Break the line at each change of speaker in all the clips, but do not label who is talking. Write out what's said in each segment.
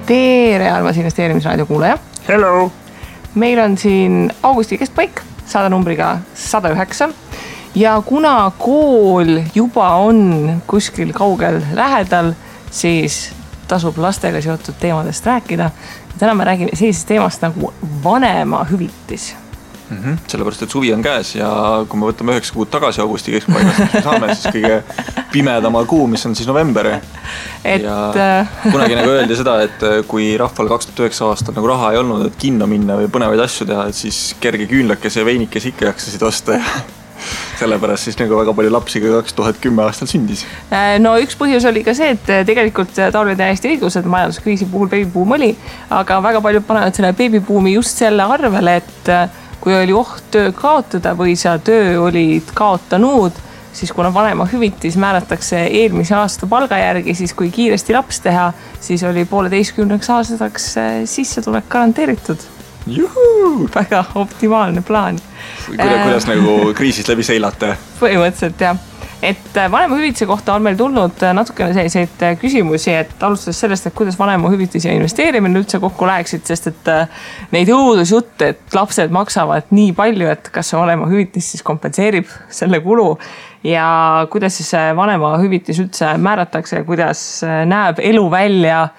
Tere, armas investeerimisraadio kuulaja.
Hello!
Meil on siin augusti keskpaik, saada numbriga 109. Ja kuna kool juba on kuskil kaugel lähedal, siis tasub lastega seotud teemadest rääkida. Täna me räägime sellisest teemast nagu vanemahüvitis.
Sellepärast, et suvi on käes ja kui me võtame 9 kuud tagasi augusti keskpaigast, siis me saame siis kõige pimedama kuu, mis on siis november. Ja kunagi nagu öeldi seda, et kui rahval 2009 aastal nagu raha ei olnud, et kinno minna või põnevaid asju teha, et siis kerge küünlakese ja veinikese ikka jaksasid osta ja sellepärast siis nagu väga palju lapsi ka 2010 aastal sündis.
No üks põhjus oli ka see, et tegelikult Taul oli täiesti õigus, et majanduskriisi puhul beebibuum oli, aga väga palju panevad selle beebibuumi just selle arvele, et kui oli oht töö kaotada või sa töö olid kaotanud, siis kuna vanemahüvitis määratakse eelmise aasta palga järgi, siis kui kiiresti laps teha, siis oli 1,5 aastaks sissetulek garanteeritud.
Juhu!
Väga optimaalne plaan.
Kuidas nagu kriisist läbi seilate?
Põhimõtteliselt jah. Et vanemahüvitise kohta on meil tulnud natukene selliseid küsimusi, et alustades sellest, et kuidas vanemahüvitis ja investeerimine üldse kokku läheksid, sest et neid õudusjutte, et lapsed maksavad nii palju, et kas see vanemahüvitis siis kompenseerib selle kulu ja kuidas siis vanemahüvitis üldse määratakse ja kuidas näeb elu välja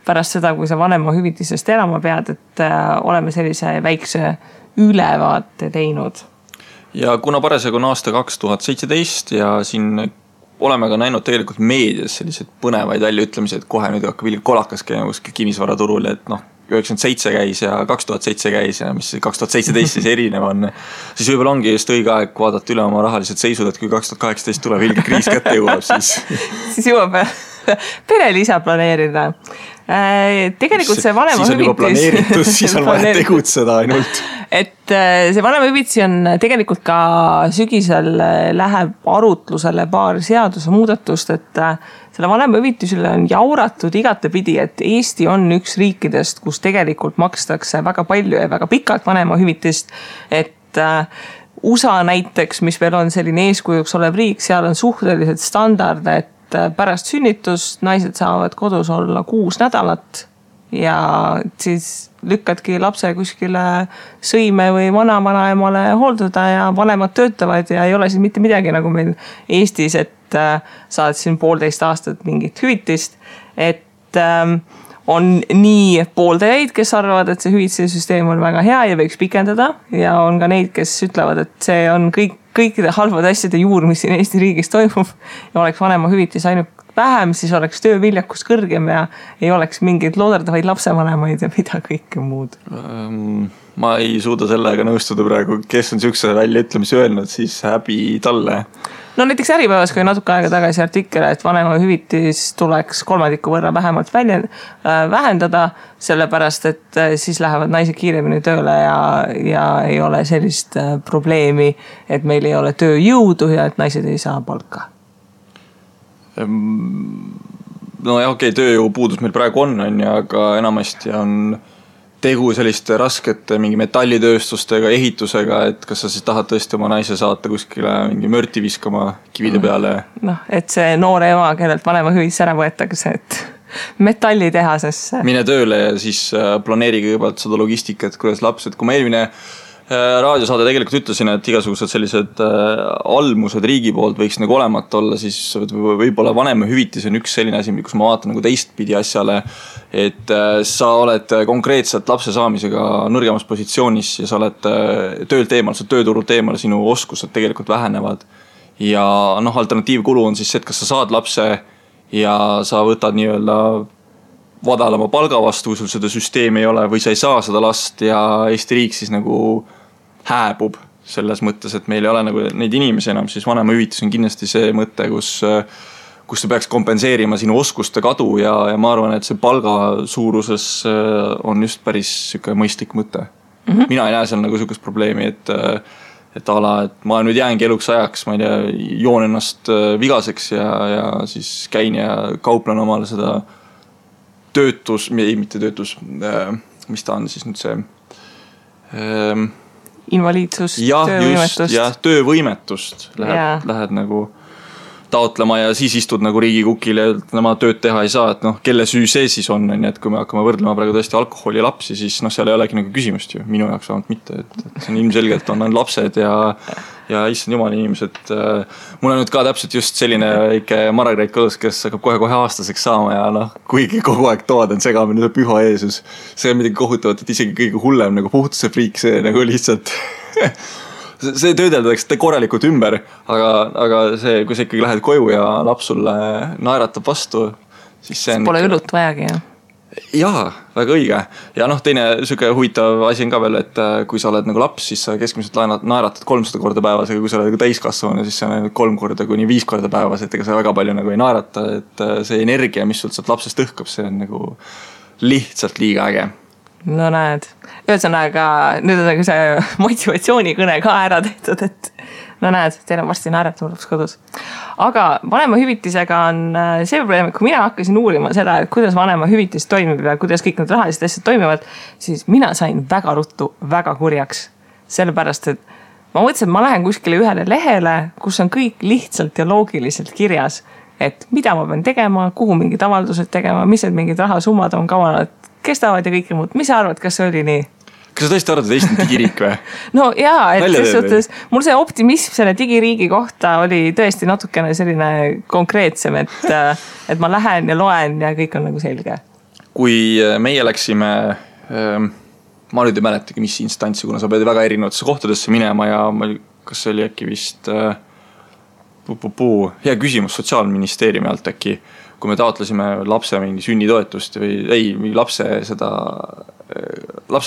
pärast seda, kui sa vanemahüvitisest elama pead, et oleme sellise väikse ülevaate teinud.
Ja kuna parasjagu on aasta 2017 ja siin oleme ka näinud tegelikult meedias sellised põnevaid väljaütlemisi, et kohe nüüd hakkab kolakas käima kuskil kinnisvaraturul, et 97 käis ja 2007 käis ja mis 2017 siis erinev on, siis võib-olla ongi just õige aeg vaadata üle oma rahalised seisud, et kui 2018 tuleb ilge kriis kätte jõuab, siis
jõuab perelisa planeerida. Tegelikult see vanemahüvitis...
Siis on juba planeeritud, siis on vaja tegutseda ainult.
Et see vanemahüvitis on tegelikult ka sügisel läheb arutlusele paar seaduse muudatust, et selle vanemahüvitisele on jauratud igatepidi, et Eesti on üks riikidest, kus tegelikult makstakse väga palju ja väga pikalt vanemahüvitist, et USA näiteks, mis veel on selline eeskujuks olev riik, seal on suhteliselt standard, et pärast sünnitust naised saavad kodus olla 6 nädalat ja siis lükkadki lapse kuskile sõime või vanaemale hooldada ja vanemad töötavad ja ei ole siis mitte midagi nagu meil Eestis, et saad siin 1,5 aastat mingit hüvitist, et on nii pooldajaid, kes arvavad, et see hüvitise süsteem on väga hea ja võiks pikendada ja on ka neid, kes ütlevad, et see on kõikide halvade asjade juur, mis siin Eesti riigis toimub ja oleks vanemahüvitis ainult vähem, siis oleks tööviljakus kõrgem ja ei oleks mingeid looderdavaid lapsevanemaid ja mida kõike muud.
Ma ei suuda sellega nõustuda praegu, kes on siukse väljaütlemisi öelnud, siis häbi talle.
No näiteks Äripäevas, kui natuke aega tagasi artikkel, et vanemahüvitis tuleks 3% võrra vähemalt vähendada, sellepärast, et siis lähevad naised kiiremini tööle ja ei ole sellist probleemi, et meil ei ole tööjõudu ja et naised ei saa palka.
No ja okei, tööjõu puudus meil praegu on, aga enamasti on tegu selliste raskete mingi metallitööstustega, ehitusega, et kas sa siis tahad tõesti oma naise saata kuskile mingi mörti viskama kivide peale?
Et see noore ema, kellelt vanemahüvitis ära võetakse, et metallitehasesse.
Mine tööle ja siis planeeri kõigepealt seda logistikat, kuidas laps, et kui ma eelmine raadiosaade tegelikult ütlesin, et igasugused sellised almused riigi poolt võiks nagu olemata olla, siis võib-olla vanemahüvitis on üks selline asi, kus ma vaatan nagu teistpidi asjale, et sa oled konkreetselt lapse saamisega nõrgemas positsioonis ja sa oled töölt eemal, sa tööturult eemal, sinu oskused tegelikult vähenevad ja alternatiivkulu on siis see, et kas sa saad lapse ja sa võtad nii-öelda vadalama palga vastu, kui sul seda süsteemi ei ole või sa ei saa seda last ja Eesti riik siis nagu hääbub selles mõttes, et meil ei ole nagu neid inimesi enam, siis vanemahüvitis on kindlasti see mõte, kus ta peaks kompenseerima sinu oskuste kadu ja ma arvan, et see palga suuruses on just päris süke mõistlik mõte. Mina ei näe seal nagu sükest probleemi, et ma nüüd jäängi eluks ajaks, ma ei tea, joon ennast vigaseks ja siis käin ja kauplen omale seda mitte töötus, mis ta on siis nüüd see
invaliidsus,
töövõimetust. Jah, töövõimetust lähed nagu taotlema ja siis istud nagu riigikukil ja nemad tööd teha ei saa, et noh, kelle süü see siis on, et kui me hakkame võrdlema praegu tõesti alkoholi ja lapsi, siis noh, seal ei olegi nagu küsimust ju, minu jaoks vähemalt mitte, et see on ilmselgelt on lapsed ja issand jumal inimesed. Mul on nüüd ka täpselt just selline väike Margaret kodus, kes hakkab kohe aastaseks saama ja noh, kuigi kogu aeg toad on segamine, see püha Jeesus. See on midagi kohutavat, et isegi kõige hullem nagu puhtuse friik, see nagu lihtsalt see töödeldakse korralikult ümber, aga see, kui sa ikkagi lähed koju ja laps sulle naeratab vastu, siis see on...
Pole õlut vajagi, jah?
Jaa, väga õige. Ja noh, teine süke huvitav asi on ka veel, et kui sa oled nagu laps, siis sa keskmiselt naeratad 300 korda päevas, aga kui sa oled nagu täiskasvanu, siis see on 3 korda kuni 5 korda päevas, et ega sa väga palju nagu ei naerata, et see energia, mis sul sealt lapsest õhkab, see on nagu lihtsalt liiga äge.
No näed, ühesõnaga nüüd on nagu see motivatsioonikõne ka ära tehtud, et no näed, teil on varsti naerat laps kodus. Aga vanemahüvitisega on see probleem, et kui mina hakkasin uurima seda, et kuidas vanemahüvitis toimib ja kuidas kõik need rahalised asjad toimivad, siis mina sain väga ruttu väga kurjaks. Sellepärast, et ma mõtlesin, et ma lähen kuskile ühele lehele, kus on kõik lihtsalt ja loogiliselt kirjas, et mida ma pean tegema, kuhu mingid avaldused tegema, mis need mingid rahasummad on kavanad, kestavad ja kõike muud. Mis sa arvad, kas see oli nii?
Kas sa tõesti arvad, et Eesti on digiriik või?
No jaa, et selles suhtes mul see optimism selle digiriigi kohta oli tõesti natukene selline konkreetsem, et ma lähen ja loen ja kõik on nagu selge.
Kui meie läksime, ma nüüd ei mäletagi, mis instantsi, kuna sa pead väga erinevatesse kohtadesse minema ja kas see oli äkki vist hea küsimus Sotsiaalministeeriumi alt äkki, kui me taotlesime lapse mingi sünnitoetust või lapse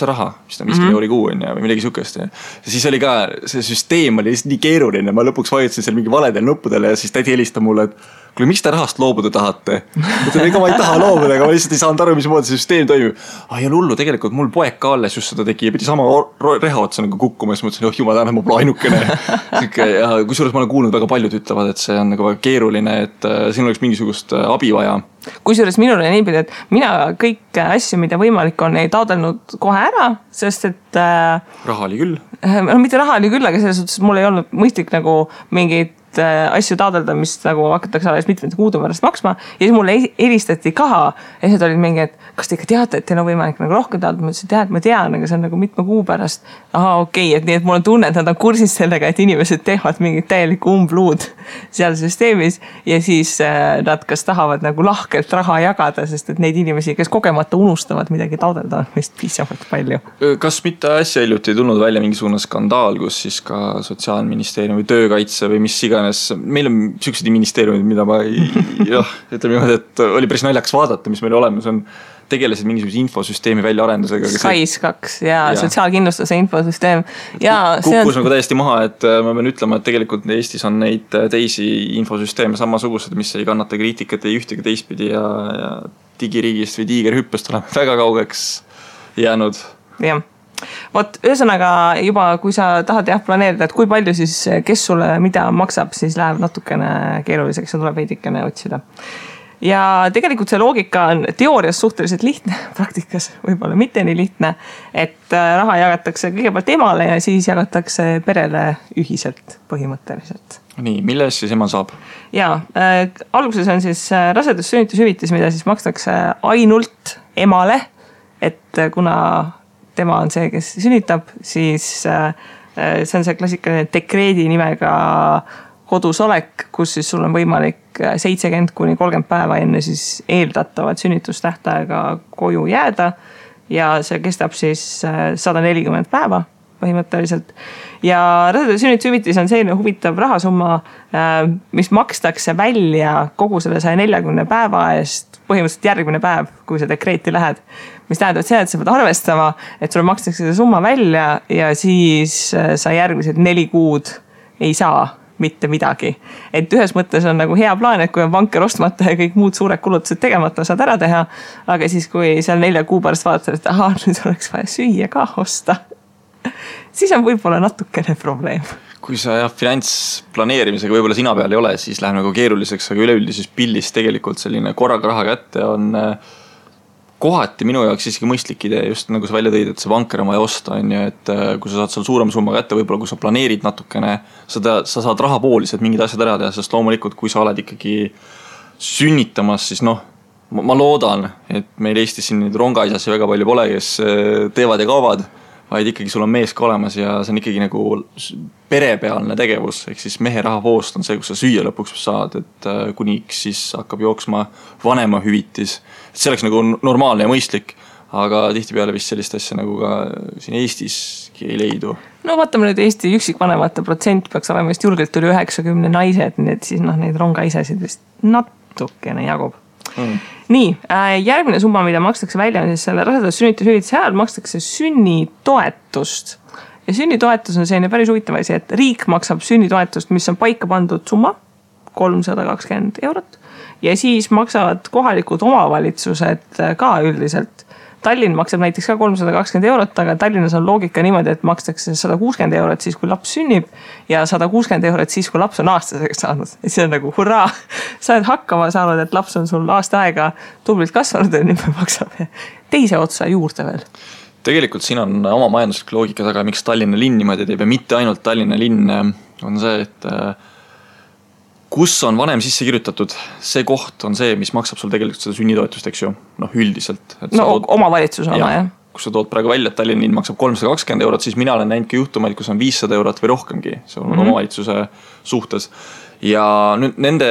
raha, mis ta 50 euri kuu on ja või midagi sukest. Ja siis oli ka, see süsteem oli nii keeruline, ma lõpuks vajutasin seal mingi valedel nuppudele ja siis tädi helistab mulle, et kuule, miks te rahast loobuda tahate? Mõtlen, ega ma ei taha loobuda, aga ma lihtsalt ei saanud aru, mismoodi see süsteem toimib. Ei ole hullu, tegelikult mul poeg ka alles just seda tegi ja pidi sama reha otsa nagu kukkuma ja siis mõtlesin, jumal täna, ma pole ainukene. Ja kusjuures ma olen kuulnud, väga paljud ütlevad, et see on nagu väga keeruline, et siin oleks mingisugust abi vaja.
Kusjuures minul on niipidi, et mina kõik asju, mida võimalik on, ei taodelnud kohe ära, sest et...
Raha oli küll.
No mitte raha oli küll, aga selles suhtes mul ei olnud mõistlik nagu mingid asju taodelda, mis nagu hakatakse alles mitmete kuude pärast maksma ja siis mulle helistati ka ja siis olid mingi, et kas te ikka teate, et teil on võimalik nagu rohkem taodelda, ma ütlesin, et ma tean, aga see on nagu mitme kuu pärast. Aha, okei, et nii, et mul on tunne, et nad on kursis sellega, et inimesed teevad mingit täielikku umbluud seal süsteemis ja siis nad kas tahavad nagu lahkelt raha jagada, sest et neid inimesi, kes kogemata unustavad midagi taodelda, on vist piisavalt palju.
Kas mitte asja hiljuti ei tulnud välja mingisugune skandaal, kus siis ka Sotsiaalministeerium või töökaitse või mis iganes, meil on süksid ministeeriumid, mida ma ütleme niimoodi, et oli päris naljakas vaadata, mis meil olemas on, tegelesid mingisuguse infosüsteemi väljaarendusega.
SKAIS2 ja sotsiaalkindlustuse infosüsteem.
Kukkus nagu täiesti maha, et ma pean ütlema, et tegelikult Eestis on neid teisi infosüsteeme samasugused, mis ei kannata kriitikat ei ühtegi teistpidi ja digiriigist või tiigerhüppest oleme väga kaugeks jäänud.
Jah. Vot, ühesõnaga juba, kui sa tahad planeerida, et kui palju siis, kes sulle mida maksab, siis läheb natukene keeruliseks ja tuleb veidikene otsida. Ja tegelikult see loogika on teoorias suhteliselt lihtne, praktikas võib-olla mitte nii lihtne, et raha jagatakse kõigepealt emale ja siis jagatakse perele ühiselt põhimõtteliselt.
Nii, milles siis ema saab?
Jaa, alguses on siis rasedus-sünnitushüvitis, mida siis makstakse ainult emale, et kuna tema on see, kes sünnitab, siis see on see klassikaline dekreedi nimega kodus olek, kus siis sul on võimalik 70 kuni 30 päeva enne siis eeldatavat sünnitustähtaega koju jääda ja see kestab siis 140 päeva põhimõtteliselt. Ja rasedus-sünnitushüvitis on selline huvitav rahasumma, mis makstakse välja kogu selle 140 päeva eest põhimõtteliselt järgmine päev, kui sa dekreeti lähed. Mis tähendab see, et sa pead arvestama, et sulle makstakse see summa välja ja siis sa järgmised 4 kuud ei saa mitte midagi. Et ühes mõttes on nagu hea plaan, et kui on vanker ostmata ja kõik muud suured kulutused tegemata saad ära teha, aga siis kui seal 4 kuu pärast vaatad, et nüüd oleks vaja süüa ka osta, siis on võib-olla natukene probleem.
Kui sa finantsplaneerimisega võib-olla sina peal ei ole, siis läheb nagu keeruliseks, aga üleüldises pildis tegelikult selline korraga raha kätte on kohati minu jaoks isegi mõistlik idee, just nagu sa välja tõid, et see vanker on vaja osta, on ju, et kui sa saad seal suurema summa kätte, võib-olla kui sa planeerid natukene, sa saad rahapooliselt mingid asjad ära teha, sest loomulikult, kui sa oled ikkagi sünnitamas, siis noh, ma loodan, et meil Eestis siin neid rongaisasi väga palju pole, kes teevad ja kaovad, vaid ikkagi sul on mees ka olemas ja see on ikkagi nagu perepealne tegevus, ehk siis mehe rahavoost on see, kus sa süüa lõpuks saad, et kuniks siis hakkab jooksma vanema hüvitis. Et see oleks nagu normaalne ja mõistlik, aga tihtipeale vist sellist asja nagu ka siin Eestiski ei leidu.
No vaatame nüüd Eesti üksikvanemate protsent peaks olema vist julgelt üle 90 naised, nii et siis neid rongaisasid vist natukene jagub. Nii, järgmine summa, mida makstakse välja, on siis selle rasedus sünnitushüvitise ajal makstakse sünnitoetust. Ja sünnitoetus on selline päris huvitav asi, et riik maksab sünnitoetust, mis on paika pandud summa, 320 €. Ja siis maksavad kohalikud omavalitsused ka üldiselt. Tallinn maksab näiteks ka 320 €, aga Tallinnas on loogika niimoodi, et makstakse 160 € siis, kui laps sünnib ja 160 € siis, kui laps on aastaseks saanud. Ja see on nagu hurraa, sa oled hakkama saanud, et laps on sul aasta aega tublilt kasvanud ja nüüd me maksame teise otsa juurde veel.
Tegelikult siin on oma majanduslik loogika taga, miks Tallinna linn niimoodi teeb ja mitte ainult Tallinna linn on see, et kus on vanem sisse kirjutatud, see koht on see, mis maksab sul tegelikult seda sünnitoetust, eks ju, noh üldiselt.
Omavalitsus oma, jah.
Kus sa tood praegu välja, et Tallinna linn maksab 320 €, siis mina olen näinud ka juhtumaid, kus on 500 € või rohkemgi, see on omavalitsuse suhtes. Ja nüüd nende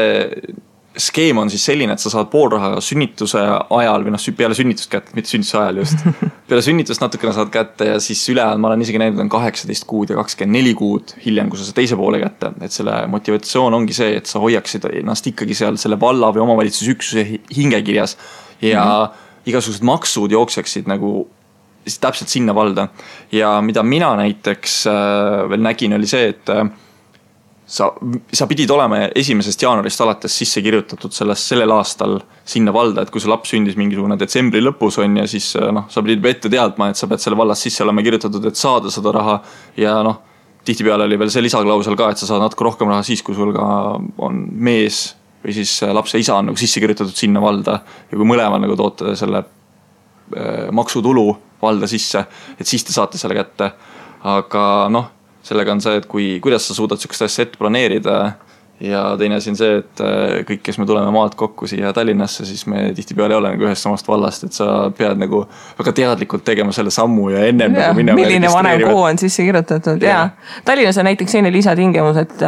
skeem on siis selline, et sa saad pool raha sünnituse ajal või peale sünnitust kätte, mitte sünnituse ajal just. Peale sünnitust natukene saad kätte ja siis ülejäänud, ma olen isegi näinud, on 18 kuud ja 24 kuud hiljem, kui sa teise poole kätte. Et selle motivatsioon ongi see, et sa hoiaksid ennast ikkagi seal selle valla või omavalitsusüksuse hingekirjas ja igasugused maksud jookseksid nagu täpselt sinna valda. Ja mida mina näiteks veel nägin, oli see, et sa pidid olema 1. jaanuarist alates sisse kirjutatud sellel aastal sinna valda, et kui see laps sündis mingisugune detsembri lõpus on ja siis sa pidid ette teadma, et sa pead selle vallas sisse olema kirjutatud, et saada seda raha ja tihtipeale oli veel see lisaklausel ka, et sa saad natuke rohkem raha siis, kui sul ka on mees või siis lapse isa on nagu sisse kirjutatud sinna valda ja kui mõlemal nagu toote selle maksutulu valda sisse, et siis te saate selle kätte, aga sellega on see, et kuidas sa suudad sellist asja ette planeerida ja teine asi on see, et kõik, kes me tuleme maalt kokku siia Tallinnasse, siis me tihtipeale ei ole nagu ühest samast vallast, et sa pead nagu väga teadlikult tegema selle sammu ja ennem nagu minema.
Milline vanem kuu on sisse kirjutatud ja Tallinnas on näiteks selline lisatingimus, et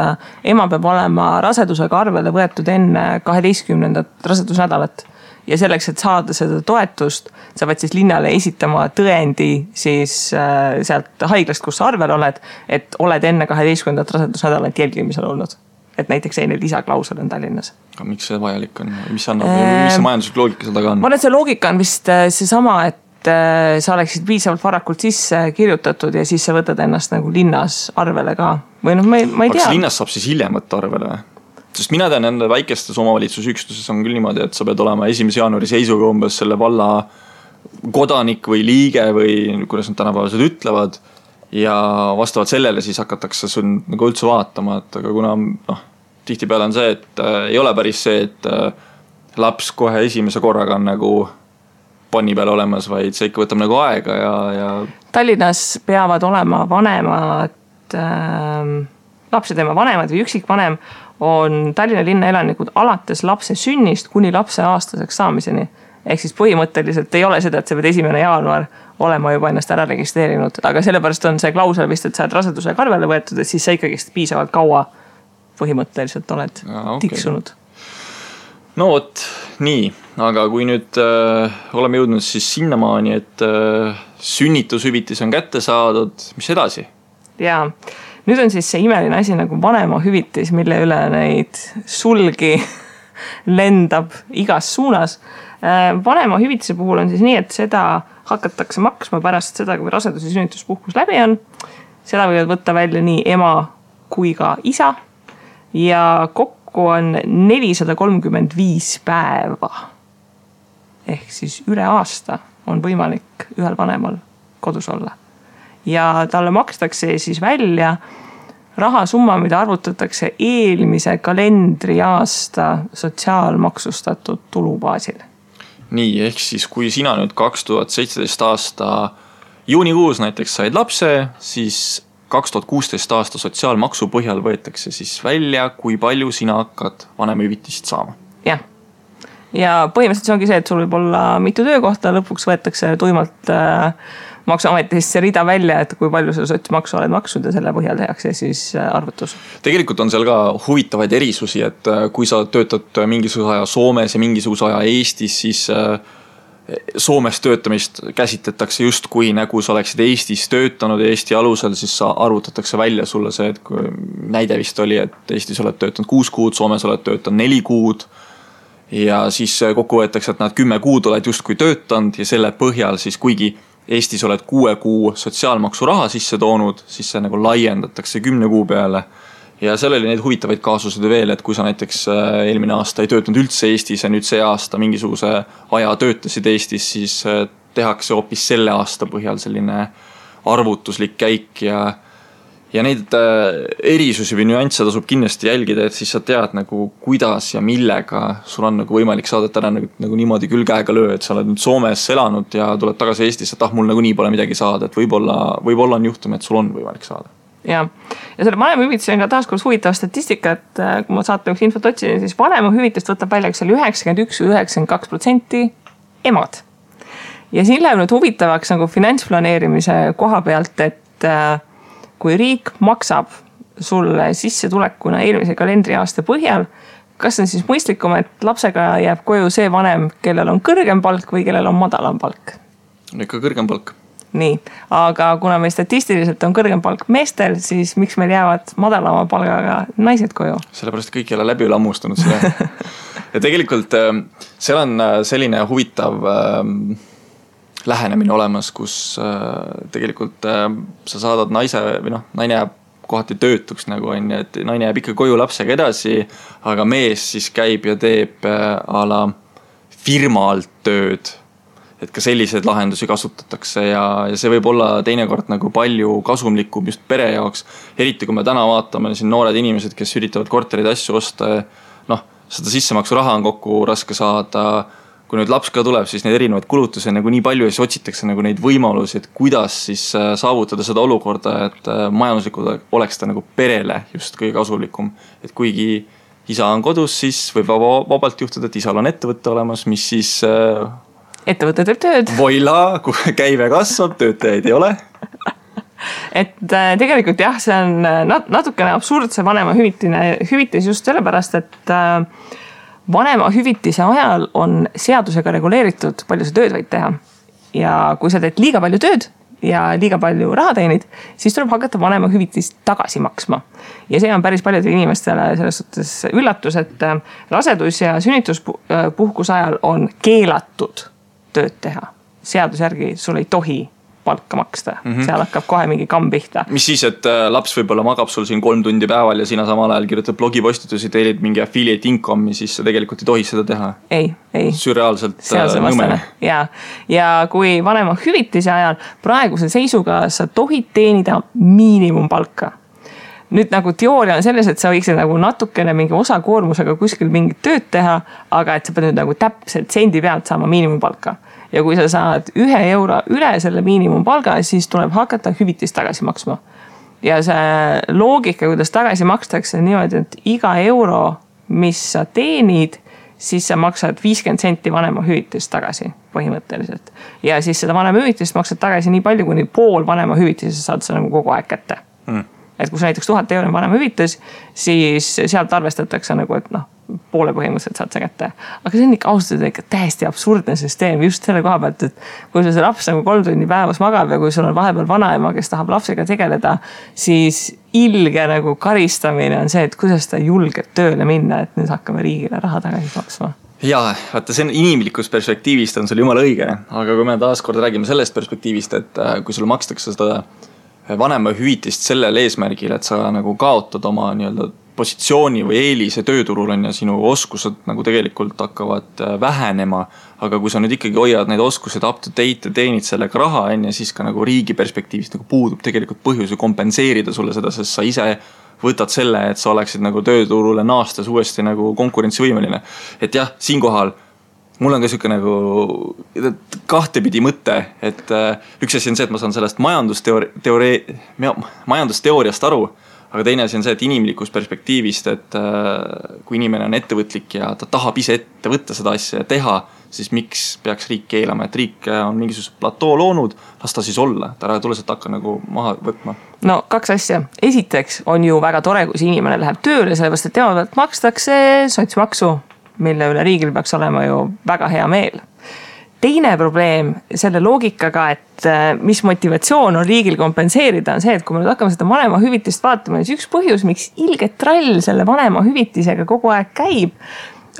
ema peab olema rasedusega arvele võetud enne 12. rasedusnädalat. Ja selleks, et saada seda toetust, sa pead siis linnale esitama tõendi siis sealt haiglast, kus sa arvel oled, et oled enne 12. rasedusnädalat jälgimisel olnud. Et näiteks selline lisaklausel on Tallinnas.
Aga miks see vajalik on? Mis see majanduslik loogika seal taga on?
Ma arvan, et see loogika on vist seesama, et sa oleksid piisavalt varakult sisse kirjutatud ja siis sa võtad ennast nagu linnas arvele ka. Või ma ei tea.
Kas linnas saab siis hiljem võtta arvele? Sest mina tean nende väikestes omavalitsusüksuses on küll niimoodi, et sa pead olema 1. jaanuari seisuga umbes selle valla kodanik või liige või kuidas nad tänapäevased ütlevad ja vastavalt sellele siis hakatakse sul nagu üldse vaatama, et aga kuna tihtipeale on see, et ei ole päris see, et laps kohe esimese korraga on nagu panni peal olemas, vaid see ikka võtab nagu aega ja
Tallinnas peavad olema vanemad lapsed tema vanemad või üksikvanem on Tallinna linna elanikud alates lapse sünnist kuni lapse aastaseks saamiseni. Ehk siis põhimõtteliselt ei ole seda, et sa pead 1. jaanuar olema juba ennast ära registreerinud, aga sellepärast on see klausel vist, et sa oled rasedusega arvele võetud, et siis sa ikkagi piisavalt kaua põhimõtteliselt oled tiksunud.
No vot, nii, aga kui nüüd oleme jõudnud siis sinnamaani, et sünnitushüvitis on kätte saadud, mis edasi?
Jaa. Nüüd on siis see imeline asi nagu vanema hüvitis, mille üle neid sulgi lendab igas suunas. Vanema hüvitise puhul on siis nii, et seda hakatakse maksma pärast seda, kui rasedus- ja sünnituspuhkus läbi on. Seda võivad võtta välja nii ema kui ka isa ja kokku on 435 päeva. Ehk siis üle aasta on võimalik ühel vanemal kodus olla. Ja talle makstakse siis välja rahasumma, mida arvutatakse eelmise kalendriaasta sotsiaalmaksustatud tulubaasil.
nii, ehk siis kui sina nüüd 2017 aasta juunikuus näiteks said lapse, siis 2016 aasta sotsiaalmaksu põhjal võetakse siis välja, kui palju sina hakkad vanemahüvitist saama.
Jah. Ja põhimõtteliselt see ongi see, et sul võib olla mitu töökohta, lõpuks võetakse tuimalt maksuametist see rida välja, et kui palju sa sotsmaksu oled maksnud ja selle põhjal tehakse siis arvutus.
Tegelikult on seal ka huvitavaid erisusi, et kui sa töötad mingisuguse aja Soomes ja mingisuguse aja Eestis, siis Soomes töötamist käsitletakse just kui nagu sa oleksid Eestis töötanud ja Eesti alusel, siis arvutatakse välja sulle see, et kui näide vist oli, et Eestis oled töötanud 6 kuud, Soomes oled töötanud 4 kuud ja siis kokku võetakse, et nad 10 kuud oled justkui töötanud ja selle põhjal siis kuigi Eestis oled 6 kuu sotsiaalmaksu raha sisse toonud, siis see nagu laiendatakse 10 kuu peale. Ja seal oli neid huvitavaid kaasused veel, et kui sa näiteks eelmine aasta ei töötanud üldse Eestis ja nüüd see aasta mingisuguse aja töötasid Eestis, siis tehakse hoopis selle aasta põhjal selline arvutuslik käik ja neid erisusi või nüansse tasub kindlasti jälgida, et siis sa tead nagu kuidas ja millega sul on nagu võimalik saada, et ära nagu niimoodi küll käega löö, et sa oled nüüd Soomes elanud ja tuled tagasi Eestisse, et mul nagu nii pole midagi saada, et võib-olla on juhtum, et sul on võimalik saada.
Ja selle vanemahüvitise on ka taaskord huvitav statistika, et kui ma saate üks infot otsin, siis vanemahüvitist võtab välja 91-92% emad. Ja siin läheb nüüd huvitavaks nagu finantsplaneerimise koha pealt, et kui riik maksab sulle sissetulekuna eelmise kalendriaasta põhjal, kas on siis mõistlikum, et lapsega jääb koju see vanem, kellel on kõrgem palk või kellel on madalam palk?
Ikka kõrgem palk.
Nii, aga kuna meil statistiliselt on kõrgem palk meestel, siis miks meil jäävad madalama palgaga naised koju?
Sellepärast kõik ei ole läbi lammustunud selle. Ja tegelikult seal on selline huvitav lähenemine olemas, kus tegelikult sa saadad naise või naine jääb kohati töötuks nagu on, et naine jääb ikka koju lapsega edasi, aga mees siis käib ja teeb a la firma alt tööd. Et ka selliseid lahendusi kasutatakse ja see võib olla teinekord nagu palju kasumlikum just pere jaoks. Eriti kui me täna vaatame siin noored inimesed, kes üritavad korterid asju osta, seda sissemaksu raha on kokku raske saada. Kui nüüd laps ka tuleb, siis neid erinevaid kulutusi on nagu nii palju ja siis otsitakse nagu neid võimalusi, et kuidas siis saavutada seda olukorda, et majanduslikult oleks ta nagu perele just kõige kasulikum. Et kuigi isa on kodus, siis võib vabalt juhtuda, et isal on ettevõtte olemas, mis siis
ettevõte teeb tööd.
Voila, kui käive kasvab, töötajaid ei ole.
Et tegelikult jah, see on natukene absurdse vanema hüvitis just sellepärast, et vanema hüvitise ajal on seadusega reguleeritud, palju sa tööd võid teha. Ja kui sa teed liiga palju tööd ja liiga palju raha teenid, siis tuleb hakata vanema hüvitist tagasi maksma. Ja see on päris paljudele inimestele selles suhtes üllatus, et rasedus- ja sünnituspuhkuse ajal on keelatud tööd teha. Seaduse järgi sul ei tohi palka maksta. Seal hakkab kohe mingi kamm pihta.
Mis siis, et laps võib-olla magab sul siin 3 tundi päeval ja sina samal ajal kirjutad blogipostitusi, teelid mingi affiliate income'i, siis sa tegelikult ei tohi seda teha.
Ei.
Sürreaalselt nõmene.
Ja kui vanema hüvitise ajal praeguse seisuga sa tohid teenida miinimumpalka. Nüüd nagu teooria on selles, et sa võiksid nagu natukene mingi osakoormusega kuskil mingit tööd teha, aga et sa pead nüüd nagu täpselt sendi pealt saama miinimumpalka. Ja kui sa saad 1 euro üle selle miinimumpalga, siis tuleb hakata hüvitist tagasi maksma. Ja see loogika, kuidas tagasi makstakse niimoodi, et iga euro, mis sa teenid, siis sa maksad 50 senti vanema hüvitist tagasi põhimõtteliselt. Ja siis seda vanema hüvitist maksad tagasi nii palju, kuni pool vanema hüvitist saad sa nagu kogu aeg kätte. Et kui sa näiteks 1000 euro vanema hüvitis, siis sealt arvestatakse nagu, et poole põhimõtteliselt saad sa kätte. Aga see on ikka austada ikka täiesti absurdne süsteem just selle koha pealt, et kui see laps nagu 3 tundi päevas magab ja kui sul on vahepeal vanaema, kes tahab lapsega tegeleda, siis ilge nagu karistamine on see, et kuidas ta julgeb tööle minna, et nüüd hakkame riigile raha tagasi maksma.
Jaa, vaata see on inimlikust perspektiivist on sul jumala õige, aga kui me taas kord räägime sellest perspektiivist, et kui sul makstakse seda vanema hüvitist sellel eesmärgil, et sa nagu kaotad oma nii-öelda positsiooni või eelise tööturul on ja sinu oskused nagu tegelikult hakkavad vähenema, aga kui sa nüüd ikkagi hoiad neid oskused up to date ja teenid sellega raha on ja siis ka nagu riigi perspektiivist nagu puudub tegelikult põhjusi kompenseerida sulle seda, sest sa ise võtad selle, et sa oleksid nagu tööturule naastes uuesti nagu konkurentsivõimeline. Et jah, siinkohal mul on ka siuke nagu kahtepidi mõte, et üks asi on see, et ma saan sellest majandusteooriast aru, aga teine asi on see, et inimlikust perspektiivist, et kui inimene on ettevõtlik ja ta tahab ise ette võtta seda asja ja teha, siis miks peaks riik keelama, et riik on mingisugust platoo loonud, las ta siis olla, ta ära tule sealt hakka nagu maha võtma.
No 2 asja. Esiteks on ju väga tore, kui see inimene läheb tööle, sellepärast, et tema pealt makstakse sotsmaksu, mille üle riigil peaks olema ju väga hea meel. Teine probleem selle loogikaga, et mis motivatsioon on riigil kompenseerida, on see, et kui me nüüd hakkame seda vanema hüvitist vaatama, siis üks põhjus, miks ilge trall selle vanema hüvitisega kogu aeg käib,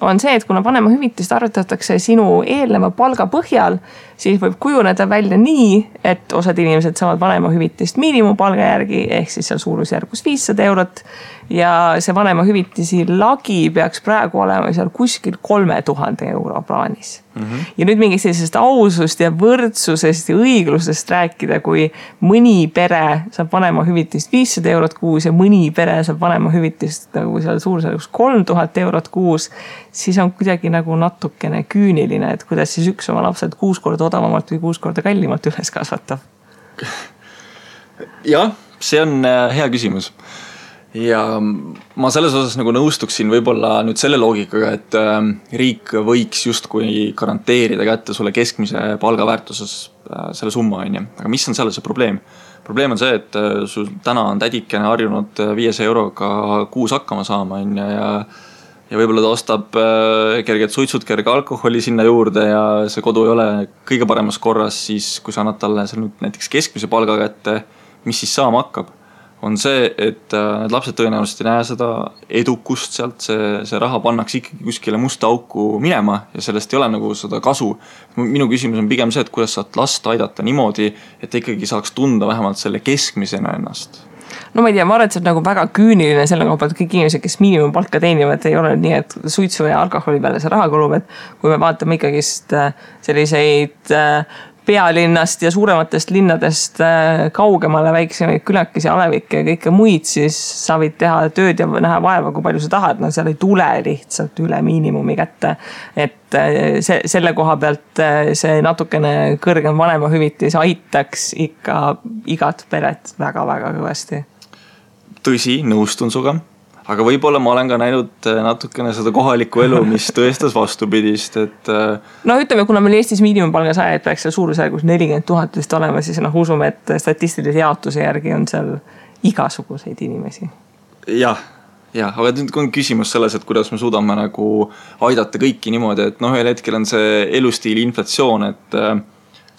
on see, et kuna vanema hüvitist arvutatakse sinu eelneva palga põhjal, siis võib kujuneda välja nii, et osad inimesed saavad vanema hüvitist miinimumpalga järgi, ehk siis seal suurusjärgus 500 eurot. Ja see vanema hüvitisi lagi peaks praegu olema seal kuskil 3000 euro plaanis. Ja nüüd mingist sellisest ausust ja võrdsusest ja õiglusest rääkida, kui mõni pere saab vanema hüvitist 500 eurot kuus ja mõni pere saab vanema hüvitist nagu seal suurusjärgus 3000 eurot kuus, siis on kuidagi nagu natukene küüniline, et kuidas siis üks oma lapsed 6 korda odavamalt või 6 korda kallimalt üles kasvatab.
Jah, see on hea küsimus. Ja ma selles osas nagu nõustuksin võib-olla nüüd selle loogikaga, et riik võiks justkui garanteerida kätte sulle keskmise palgaväärtuses selle summa, on ju. Aga mis on selle see probleem? Probleem on see, et sul täna on tädikene harjunud 500 euroga kuus hakkama saama, on ju, ja võib-olla ta ostab kerged suitsud, kerge alkoholi sinna juurde ja see kodu ei ole kõige paremas korras, siis kui sa annad talle näiteks keskmise palga kätte, mis siis saama hakkab? On see, et need lapsed tõenäoliselt ei näe seda edukust sealt, see raha pannaks ikkagi kuskile musta auku minema ja sellest ei ole nagu seda kasu. Minu küsimus on pigem see, et kuidas saad last aidata niimoodi, et ikkagi saaks tunda vähemalt selle keskmisena ennast.
No ma ei tea, ma arvan, et see on nagu väga küüniline selle koha pealt, kõik inimesed, kes miinimumpalka teenivad, ei ole nii, et suitsu ja alkoholi peale see raha kulub, et kui me vaatame ikkagist selliseid pealinnast ja suurematest linnadest kaugemale väiksemaid külakesi, alevikke ja kõike muid, siis sa võid teha tööd ja näha vaeva, kui palju sa tahad. No seal ei tule lihtsalt üle miinimumi kätte. Et selle koha pealt see natukene kõrgem vanema hüvitis aitaks ikka igat peret väga-väga kõvasti.
Tõsi, nõustun suga. Aga võib-olla ma olen ka näinud natukene seda kohalikku elu, mis tõestas vastupidist, et...
No ütleme, kuna meil Eestis miinimumpalga saajaid peaks seal suurusjärgus 40 000 vist olema, siis usume, et statistilise jaotuse järgi on seal igasuguseid inimesi.
Jah, aga nüüd on küsimus selles, et kuidas me suudame nagu aidata kõiki niimoodi, et ühel hetkel on see elustiili inflatsioon, et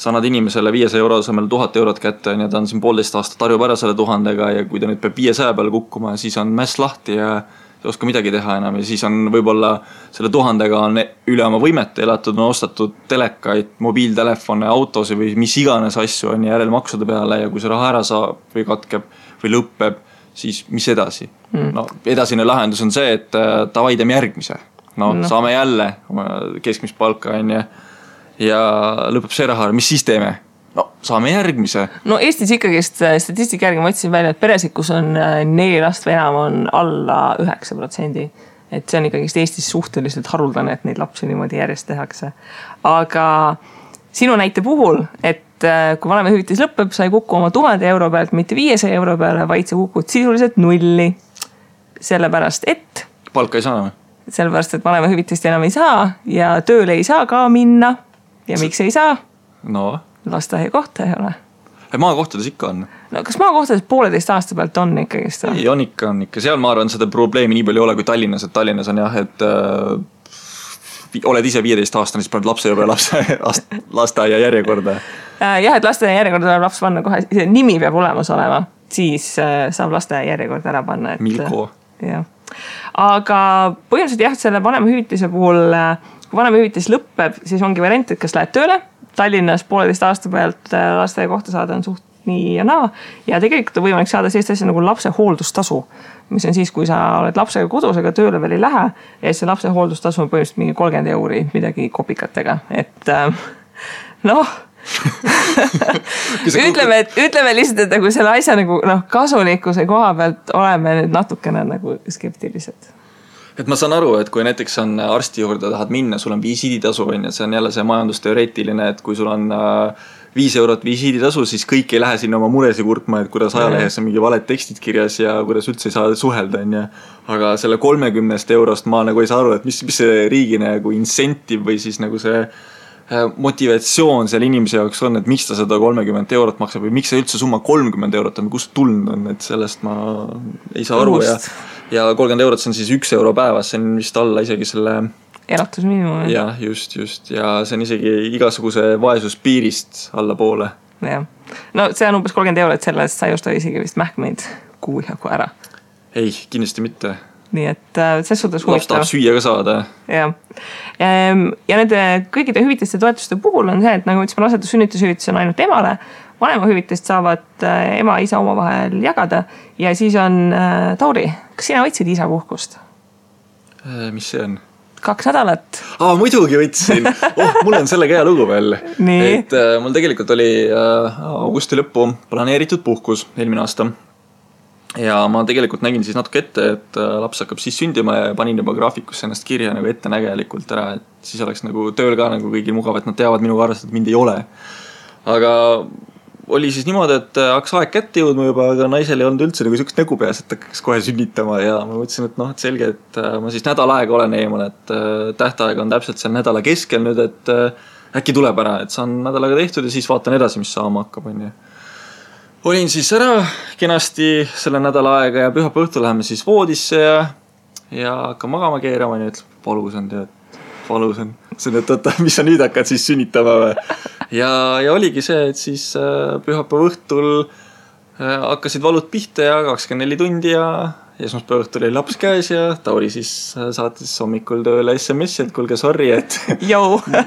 sa annad inimesele 500 euro asemel 1000 eurot kätte ja ta on siin 1,5 aastat harjub ära selle 1000-ga ja kui ta nüüd peab 500 peale kukkuma, siis on mäss lahti ja ei oska midagi teha enam ja siis on võib-olla selle 1000-ga on üle oma võimete elatud, on ostatud telekaid, mobiiltelefone, autosi või mis iganes asju on järelmaksude peale ja kui see raha ära saab või katkeb või lõppeb, siis mis edasi? No, edasine lahendus on see, et davai teeme järgmise. No, saame jälle keskmist palka on ja lõpeb see raha, mis siis teeme? No, saame järgmise. No
Eestis ikkagist statistika järgi ma otsin välja, et peresid, kus on 4 last või enam, on alla 9%. Et see on ikkagist Eestis suhteliselt haruldane, et neid lapsi niimoodi järjest tehakse. Aga sinu näite puhul, et kui vanema hüvitis lõpeb, sa ei kuku oma 1000 euro pealt, mitte 500 euro peale, vaid sa kukud sisuliselt nulli. Sellepärast, et...
Palka ei saa enam.
Sellepärast, et vanema hüvitist enam ei saa ja tööle ei saa ka minna. Ja miks ei saa?
No.
Lasteaia kohta ei ole.
Maakohtades ikka on.
No kas maakohtades 1,5 aasta pealt on ikkagist?
Ei, on ikka. Seal ma arvan, seda probleemi nii palju ei ole kui Tallinnas. Et Tallinnas on jah, et oled ise 15 aastane, siis paned lapse juba lasteaia järjekorda.
Jah, et lasteaia järjekorda tuleb laps panna kohe. Nimi peab olemas olema. Siis saab lasteaia järjekorda ära panna.
Milko.
Jah. Aga põhimõtteliselt jah, selle vanema hüvitise puhul... Kui vanema hüvitis lõpeb, siis ongi variant, et kas lähed tööle. Tallinnas 1,5 aasta pealt lasteaia kohta saada on suht nii ja naa. Ja tegelikult on võimalik saada sellist asja nagu lapse hooldustasu, mis on siis, kui sa oled lapsega kodus, aga tööle veel ei lähe. Ja see lapse hooldustasu on põhimõtteliselt mingi 30 euri, midagi kopikatega. Et ütleme lihtsalt, et nagu selle asja nagu, kasulikkuse koha pealt oleme nüüd natukene nagu skeptilised.
et ma saan aru, et kui näiteks on arsti juurde tahad minna, sul on visiiditasu, see on jälle see majandusteoreetiline, et kui sul on 5 eurot visiiditasu, siis kõik ei lähe sinna oma muresi kurtma, et kuidas ajalehes on mingi valed tekstid kirjas ja kuidas üldse ei saa suhelda, on. Aga selle 30 eurost ma nagu ei saa aru, et mis see riigi nagu incentive või siis nagu see motivatsioon seal inimese jaoks on, et miks ta seda 30 eurot maksab või miks see üldse summa 30 eurot on, kust tulnud on, et sellest ma ei saa aru ja 30 eurot see on siis 1 euro päevas, see on vist alla isegi selle
elatusmiinimum.
Jah, just. Ja see on isegi igasuguse vaesuspiirist alla poole.
Jah. No see on umbes 30 eurot, sellest sa ei osta isegi vist mähkmeid kuu jagu ära.
Ei, kindlasti mitte.
Nii et ses suhtes huvitav.
Laps tahab süüa ka saada.
Jah. Ja nende kõigide hüvitiste toetuste puhul on see, et nagu ütlesime, rasedus- sünnitushüvitis on ainult emale, vanemahüvitist saavad ema ja isa omavahel jagada ja siis on Tauri, kas sina võtsid isa puhkust?
Mis see on?
2 nädalat.
Muidugi võtsin. Mul on sellega hea lugu veel.
Nii.
Et mul tegelikult oli augusti lõppu planeeritud puhkus eelmine aasta. Ja ma tegelikult nägin siis natuke ette, et laps hakkab siis sündima ja panin juba graafikusse ennast kirja nagu ettenägelikult ära, et siis oleks nagu tööl ka nagu kõigil mugav, et nad teavad minuga arvestada, et mind ei ole. Aga oli siis niimoodi, et hakkas aeg kätte jõudma juba, aga naisel ei olnud üldse nagu sükst nägu peas, et hakkas kohe sünnitama ja ma mõtlesin, et et selge, et ma siis nädal aega olen eemal, et tähtaeg on täpselt seal nädala keskel nüüd, et äkki tuleb ära, et saan nädalaga tehtud ja siis vaatan edasi, mis saama hakkab. Olin siis ära kenasti selle nädala aega ja pühapäeva õhtul läheme siis voodisse ja hakkan magama keerama ja ütleb, valus on tead. Valus on. See on, et mis sa nüüd hakkad siis sünnitama või? Ja oligi see, et siis pühapäeva õhtul hakkasid valud pihta ja 24 tundi ja esmaspäeva õhtul oli laps käes ja Tauri siis saatis hommikul tööle SMS-i, et kuulge, sorry, et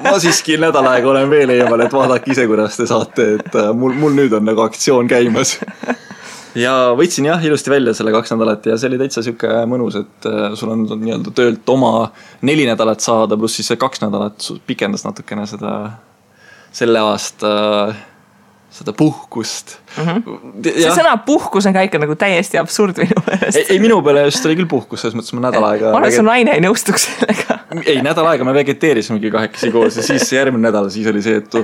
ma siiski nädal aega olen veel eemal, et vaadake ise, kuidas te saate, et mul nüüd on nagu aktsioon käimas. Ja võtsin ilusti välja selle 2 nädalat ja see oli täitsa siuke mõnus, et sul on nii-öelda töölt oma 4 nädalat saada, pluss siis see 2 nädalat pikendas natukene selle aasta seda puhkust.
See sõna puhkus on ka ikka nagu täiesti absurd minu meelest.
Ei, minu peale just oli küll puhkus, selles mõttes ma nädal aega...
Ma arvan, et su naine ei nõustuks sellega.
Ei, nädal aega me vegeteerisimegi 2 koos ja siis järgmine nädal siis oli see, et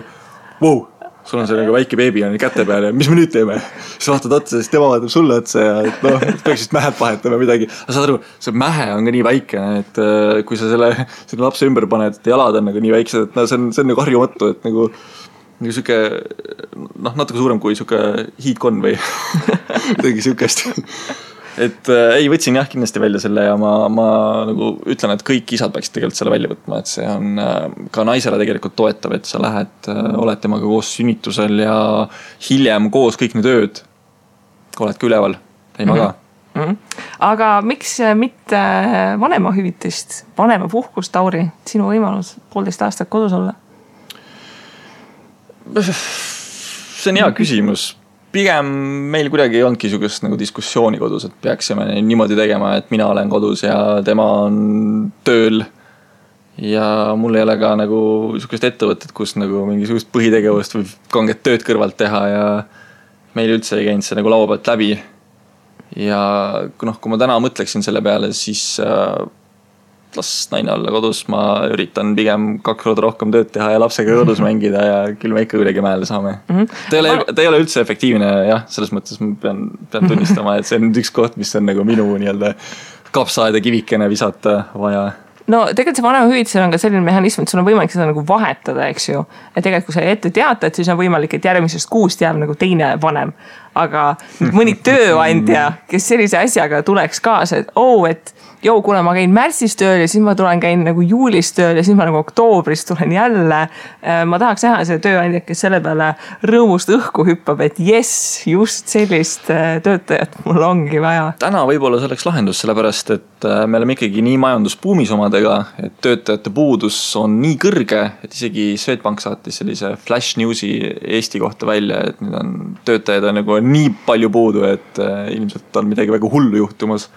wow, sul on see nagu väike beebi on käte peal ja mis me nüüd teeme? Siis vaatad otsa, siis tema vaatab sulle otsa ja peaks vist mähed vahetama midagi. Aga saad aru, see mähe on ka nii väike, et kui sa selle lapse ümber paned, et jalad on nagu nii väiksed, et see on nagu harjumatu, et nagu siuke, natuke suurem kui siuke hiidkon või midagi siukest. Et ei, võtsin kindlasti välja selle ja ma nagu ütlen, et kõik isad peaksid tegelikult selle välja võtma, et see on ka naisele tegelikult toetav, et sa lähed, oled temaga koos sünnitusel ja hiljem koos kõik need ööd oled ka üleval, ei maga.
Aga miks mitte vanemahüvitist, vanemapuhkust, Tauri, sinu võimalus 1,5 aastat kodus olla?
See on hea küsimus. Pigem meil kuidagi ei olnudki niisugust nagu diskussiooni kodus, et peaksime niimoodi tegema, et mina olen kodus ja tema on tööl. Ja mul ei ole ka nagu niisugust ettevõtet, kus nagu mingisugust põhitegevust või kanget tööd kõrvalt teha ja meil üldse ei käinud see nagu laua pealt läbi. Ja kui ma täna mõtleksin selle peale, siis las naine olla kodus, ma üritan pigem 2 korda rohkem tööd teha ja lapsega kodus mängida ja küll me ikka kuidagi mäele saame. Ta ei ole üldse efektiivne, selles mõttes ma pean tunnistama, et see on üks koht, mis on nagu minu nii-öelda kapsaaeda kivikene visata vaja.
No tegelikult see vanemahüvitisel on ka selline mehhanism, et sul on võimalik seda nagu vahetada, eks ju. Et tegelikult kui sa ette teatad, siis on võimalik, et järgmisest kuust jääb nagu teine vanem. Aga mõni tööandja, kes sellise asjaga tuleks kaasa, et kuna ma käin märtsis tööl ja siis ma käin nagu juulis tööl ja siis ma nagu oktoobris tulen jälle. Ma tahaks näha selle tööandja, kes selle peale rõõmust õhku hüppab, et jess, just sellist töötajat mul ongi vaja.
Täna võib-olla selleks lahendus, sellepärast, et me oleme ikkagi nii majanduspuumis omadega, et töötajate puudus on nii kõrge, et isegi Swedbank saatis sellise flash newsi Eesti kohta välja, et nüüd on töötajad on nagu nii palju puudu, et ilmselt on midagi väga hullu juhtumas.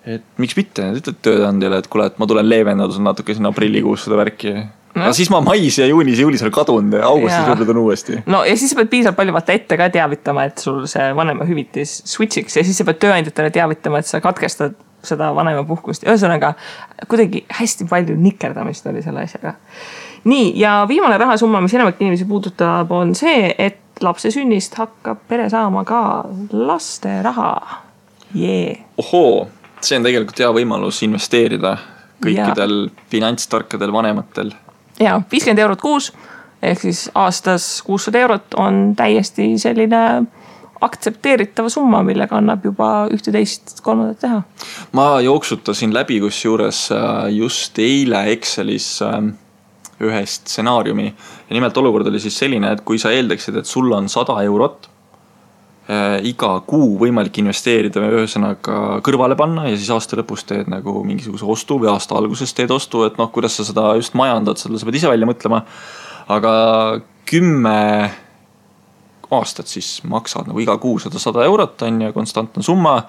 Et miks mitte, ütled tööandjale, et kuule, et ma tulen leevendada natuke sinna aprillikuus seda värki. Aga siis ma mais ja juunis ja juulis olen kadunud ja augustis võib-olla on uuesti.
No ja siis sa pead piisavalt palju vaata ette ka teavitama, et sul see vanemahüvitis switchiks ja siis sa pead tööandjatele teavitama, et sa katkestad seda vanemapuhkust. Ühesõnaga, kuidagi hästi palju nikerdamist oli selle asjaga. Nii, ja viimane rahasumma, mis enamik inimesi puudutab, on see, et lapse sünnist hakkab pere saama ka laste raha.
Ohoo, see on tegelikult hea võimalus investeerida kõikidel finantstarkadel vanematel.
Ja 50 eurot kuus, ehk siis aastas 600 eurot on täiesti selline aktsepteeritava summa, millega annab juba 11-3 teha.
Ma jooksutasin läbi kusjuures just eile Excelis ühe stsenaariumi. Ja nimelt olukord oli siis selline, et kui sa eeldaksid, et sul on 100 eurot iga kuu võimalik investeerida ühesõnaga kõrvale panna ja siis aasta lõpus teed nagu mingisuguse ostu või aasta alguses teed ostu, et noh, kuidas sa seda just majandad, seda sa pead ise välja mõtlema. Aga 10 aastat siis maksad nagu iga kuu 100 eurot on ja konstantne summa.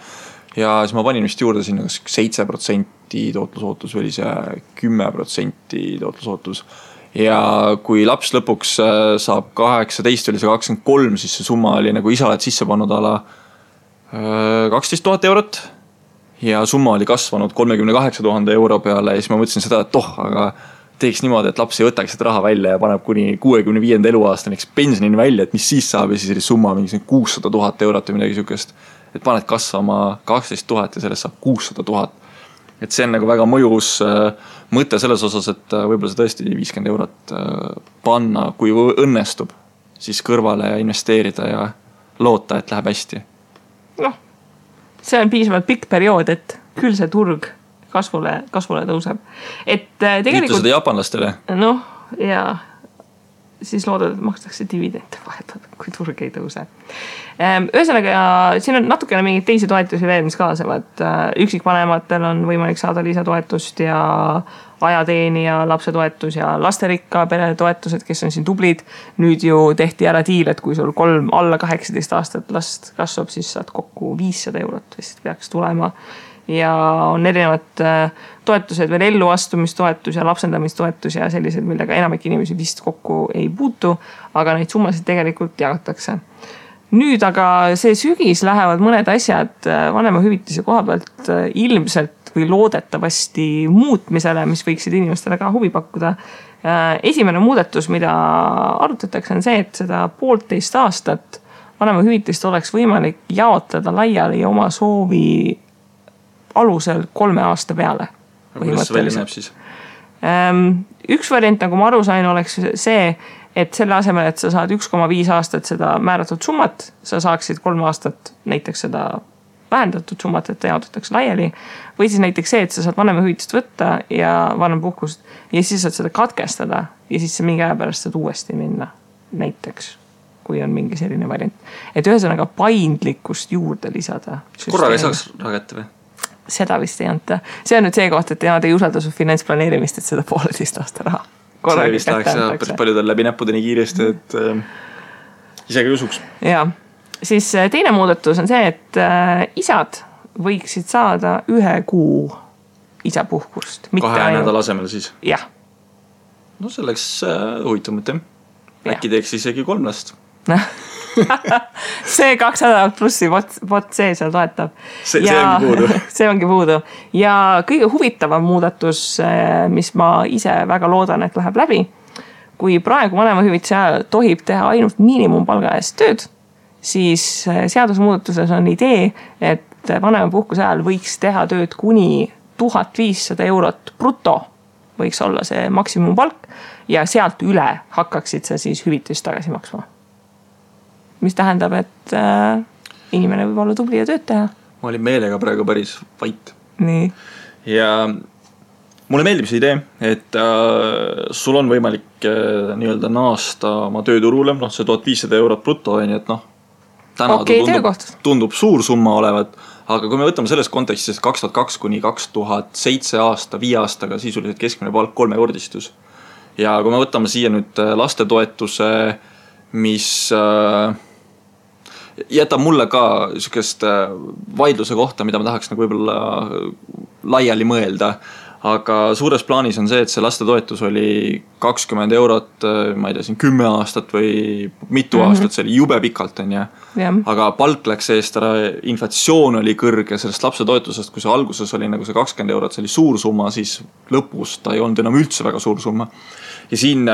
Ja siis ma panin vist juurde sinna 7% tootlusootus või oli see 10% tootlusootus. Ja kui laps lõpuks saab 18 või 23, siis see summa oli nagu isa oled sisse pannud ala 12 000 eurot. Ja summa oli kasvanud 38 000 euro peale ja siis ma mõtlesin seda, et aga teeks niimoodi, et laps ei võtaks seda raha välja ja paneb kuni 65. eluaastaniks pensionini välja, et mis siis saab ja siis oli summa mingi 600 000 eurot või midagi sükest. Et paned kasvama 12 000 ja sellest saab 600 000. Et see on nagu väga mõjus mõte selles osas, et võib-olla see tõesti 50 eurot panna, kui õnnestub, siis kõrvale investeerida ja loota, et läheb hästi.
Noh, see on piisavalt pikk periood, et küll see turg kasvule tõuseb. Et tegelikult...
Ütle seda japanlastele.
Noh, ja siis loodad, et makstakse dividende vahepeal, kui turg ei tõuse. Ühesõnaga, siin on natukene mingid teisi toetusi veel, mis kaasavad. Üksikvanematel on võimalik saada lisatoetust ja ajateenija lapsetoetus ja lasterikka pere toetused, kes on siin tublid. Nüüd ju tehti ära diil, et kui sul 3 alla 18 aastat last kasvab, siis saad kokku 500 eurot vist peaks tulema. Ja on erinevad toetused veel elluastumistoetus ja lapsendamistoetus ja sellised, millega enamik inimesi vist kokku ei puutu, aga neid summasid tegelikult jagatakse. Nüüd aga see sügis lähevad mõned asjad vanemahüvitise koha pealt ilmselt või loodetavasti muutmisele, mis võiksid inimestele ka huvi pakkuda. Esimene muudatus, mida arutatakse, on see, et seda 1,5 aastat vanemahüvitist oleks võimalik jaotada laiali oma soovi alusel 3 aasta peale.
Kuidas see välja näeb siis?
Üks variant, nagu ma aru sain, oleks see, et selle asemel, et sa saad 1,5 aastat seda määratud summat, sa saaksid 3 aastat näiteks seda vähendatud summat, et ta jaotatakse laiali. Või siis näiteks see, et sa saad vanemahüvitist võtta ja vanempuhkust ja siis saad seda katkestada ja siis sa mingi aja pärast saad uuesti minna näiteks, kui on mingi selline variant. Et ühesõnaga paindlikkust juurde lisada.
Korraga ei saaks ragette või?
Seda vist ei anta. See on nüüd see koht, et nad ei usalda su finantsplaneerimist, et seda 1,5 aasta raha.
See vist läheks päris paljudel läbi näppude nii kiiresti, et isegi usuks.
Ja, siis teine muudatus on see, et isad võiksid saada 1 kuu isapuhkust.
2 nädala asemel siis?
Jah.
No see oleks huvitav mõte. Äkki teeks isegi 3 last.
See 2 nädalat plussi vot see seal toetab.
See ongi puudu.
See ongi puudu. Ja kõige huvitavam muudatus, mis ma ise väga loodan, et läheb läbi, kui praegu vanemahüvitise ajal tohib teha ainult miinimumpalga eest tööd, siis seadusmuudatuses on idee, et vanemapuhkuse ajal võiks teha tööd kuni 1500 eurot bruto, võiks olla see maksimumpalk ja sealt üle hakkaksid sa siis hüvitist tagasi maksma. Mis tähendab, et inimene võib olla tubli ja tööd teha.
Ma olin meelega praegu päris vait.
Nii.
Ja mulle meeldib see idee, et sul on võimalik nii-öelda naasta oma tööturule, see 1500 eurot bruto, et täna tundub suur summa olevat, aga kui me võtame selles kontekstis 2002 kuni 2007 aasta, 5 aastaga sisuliselt keskmine palk 3-kordistus. Ja kui me võtame siia nüüd lastetoetuse, mis jätab mulle ka sükest vaidluse kohta, mida ma tahaks nagu võib-olla laiali mõelda. aga suures plaanis on see, et see lastetoetus oli 20 eurot, ma ei tea, siin 10 aastat või mitu aastat, see oli jube pikalt, on ju. Aga palk läks eest ära, inflatsioon oli kõrge sellest lapsetoetusest, kui see alguses oli nagu see 20 eurot, see oli suur summa, siis lõpus ta ei olnud enam üldse väga suur summa. Ja siin